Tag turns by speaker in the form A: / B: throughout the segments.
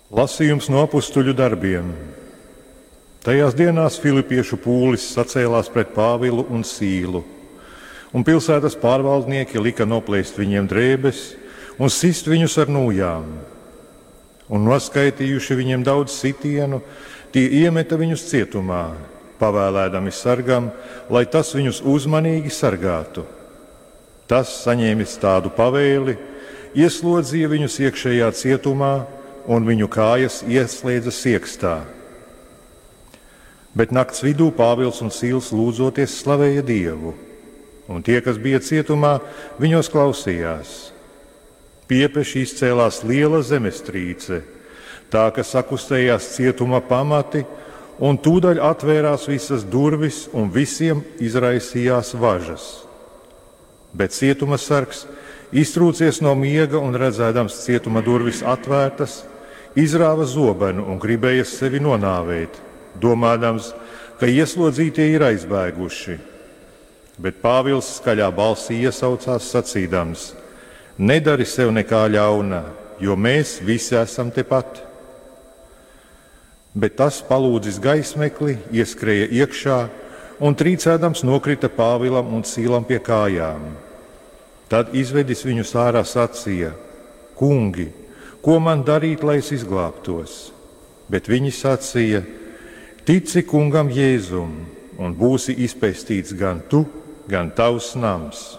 A: Lasījums no apustuļu darbiem. Tajās dienās filipiešu pūlis sacēlās pret Pāvilu un Sīlu, un pilsētas pārvaldnieki lika noplēst viņiem drēbes un sist viņus ar nūjām. Un noskaitījuši viņiem daudz sitienu, tie iemeta viņus cietumā, pavēlēdami sargam, lai tas viņus uzmanīgi sargātu. Tas, saņēmis tādu pavēli, ieslodzīja viņus iekšējā cietumā un viņu kājas ieslēdza siekstā. Bet nakts vidū Pāvils un Sīls lūdzoties slavēja Dievu, un tie, kas bija cietumā, viņos klausījās. Piepeši izcēlās liela zemestrīce, tā, ka sakustējās cietuma pamati, un tūdaļ atvērās visas durvis, un visiem izraisījās važas. Bet cietuma sargs, iztrūcies no miega un redzēdams cietuma durvis atvērtas, izrāva zobenu un gribēja sevi nonāvēt, domādams, ka ieslodzītie ir aizbēguši. Bet Pāvils skaļā balsī iesaucās sacīdams: nedari sev nekā ļauna, jo mēs visi esam tepat. Bet tas, palūdzis gaismekli, ieskrēja iekšā un trīcēdams nokrita Pāvilam un Sīlam pie kājām. Tad izvedis viņus ārā sacīja: kungi, ko man darīt, lai es izglābtos? Bet viņi sacīja: tici kungam Jēzum, un būsi izpestīts gan tu, gan tavs nams.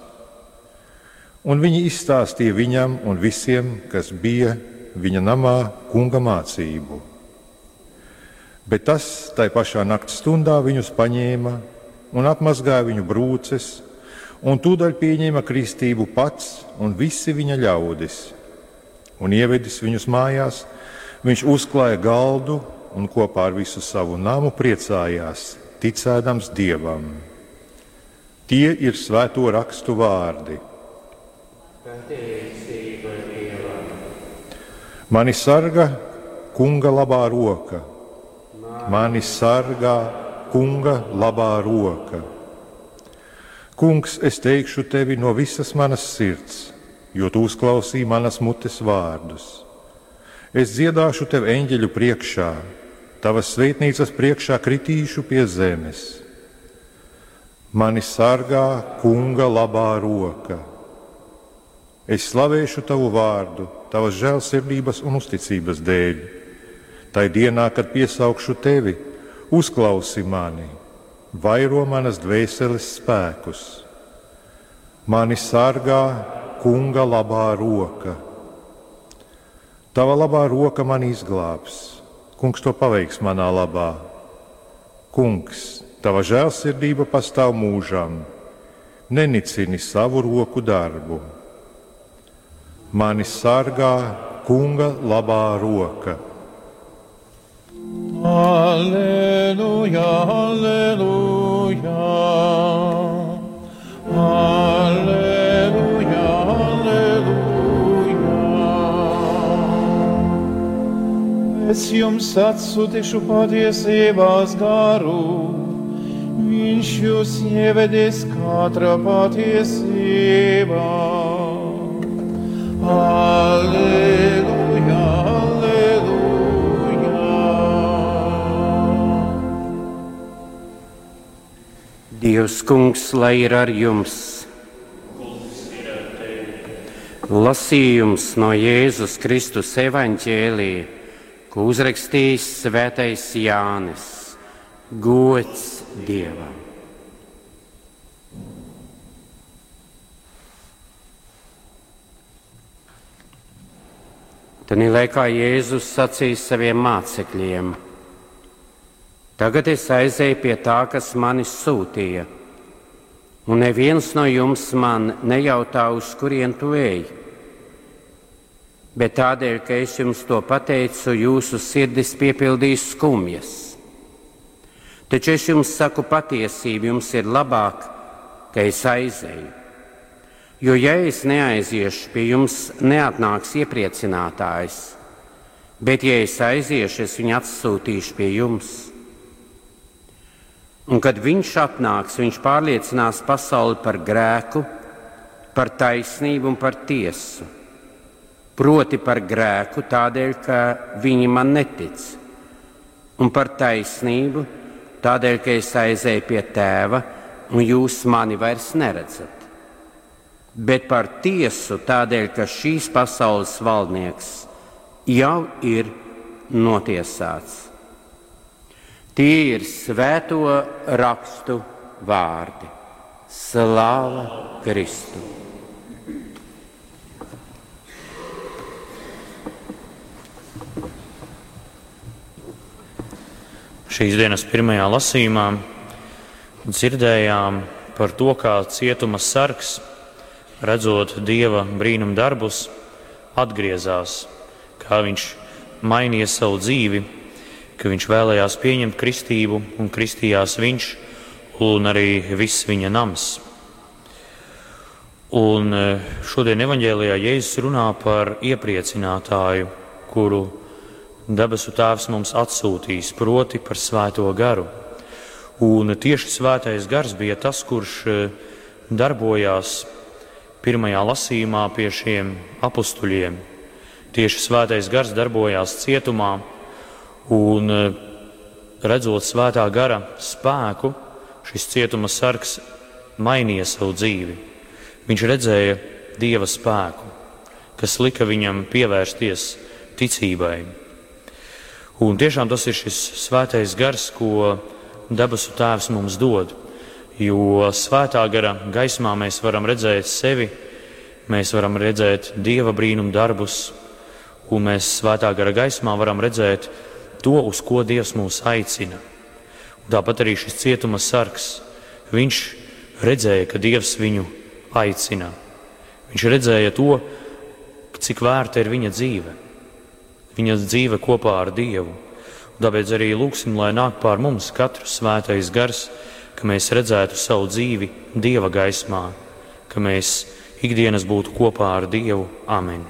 A: Un viņi izstāstīja viņam un visiem, kas bija viņa namā, kunga mācību. Bet tas tai pašā nakts stundā viņus paņēma un apmazgāja viņu brūces, un tūdaļ pieņēma kristību pats un visi viņa ļaudis. Un ievedis viņus mājās, viņš uzklāja galdu un kopā ar visu savu namu priecājās, ticēdams Dievam. Tie ir svēto rakstu vārdi. Mani sargā kunga labā roka. Mani sargā kunga labā roka. Kungs, es teikšu tevi no visas manas sirds, jo tu uzklausīji manas mutes vārdus. Es dziedāšu tev eņģeļu priekšā, tavas svētnīcas priekšā kritīšu pie zemes. Mani sargā kunga labā roka. Es slavēšu tavu vārdu, tavas žēlsirdības un uzticības dēļ. Tai dienā, kad piesaukšu tevi, uzklausi mani, vairo manas dvēseles spēkus. Mani sargā kunga labā roka. Tava labā roka mani izglābs. Kungs to paveiks manā labā. Kungs, tava žēlsirdība pastāv mūžam. Nenicini savu roku darbu. Mani sargā kunga labā roka.
B: Alleluja, alleluja, alleluja, alleluja. Es jums atsūtīšu patiesībās garu, viņš jūs ievedīs katra patiesībā. Alleluja, alleluja.
C: Dievs kungs, lai ir ar jums. Lasījums no Jēzus Kristus evaņģēlija, ko uzrakstījis svētais Jānis. Gods Dievam! Tanī laikā Jēzus sacīja saviem mācekļiem: tagad es aizēju pie tā, kas mani sūtīja, un neviens no jums man nejautā, uz kurien tu ej. Bet tādēļ, ka es jums to pateicu, jūsu sirdis piepildīs skumjas. Taču es jums saku patiesību, jums ir labāk, ka es aizēju. Jo ja es neaiziešu, pie jums neatnāks iepriecinātājs, bet ja es aiziešu, es viņu atsūtīšu pie jums. Un kad viņš atnāks, viņš pārliecinās pasauli par grēku, par taisnību un par tiesu. proti par grēku tādēļ, ka viņi man netic, un par taisnību tādēļ, ka es aizēju pie Tēva, un jūs mani vairs neredzat, bet par tiesu tādēļ, ka šīs pasaules valdnieks jau ir notiesāts. Tie ir svēto rakstu vārdi. Slāva Kristu!
D: Šīs dienas pirmajā lasījumā dzirdējām par to, kā cietuma sargs, redzot Dieva brīnum darbus, atgriezās, kā viņš mainīja savu dzīvi, ka viņš vēlējās pieņemt kristību un kristījās viņš un arī viss viņa nams. Un šodien evaņģēlijā Jēzus runā par iepriecinātāju, kuru debesu Tēvs mums atsūtīs, proti par Svēto garu. Un tieši Svētais gars bija tas, kurš darbojās pirmajā lasījumā pie šiem apustuļiem. Tieši Svētais gars darbojās cietumā, un redzot Svētā gara spēku, šis cietuma sargs mainīja savu dzīvi. Viņš redzēja Dieva spēku, kas lika viņam pievērsties ticībai. Un tiešām tas ir šis Svētais gars, ko debesu Tēvs mums dod, jo Svētā gara gaismā mēs varam redzēt sevi, mēs varam redzēt Dieva brīnum darbus, un mēs Svētā gara gaismā varam redzēt to, uz ko Dievs mūs aicina. Un tāpat arī šis cietuma sargs, viņš redzēja, ka Dievs viņu aicina. Viņš redzēja to, cik vērta ir viņa dzīve. Viņa dzīve kopā ar Dievu. Un tāpēc arī lūgsim, lai nāk pār mums katru Svētais gars, ka mēs redzētu savu dzīvi Dieva gaismā, ka mēs ikdienas būtu kopā ar Dievu. Amen.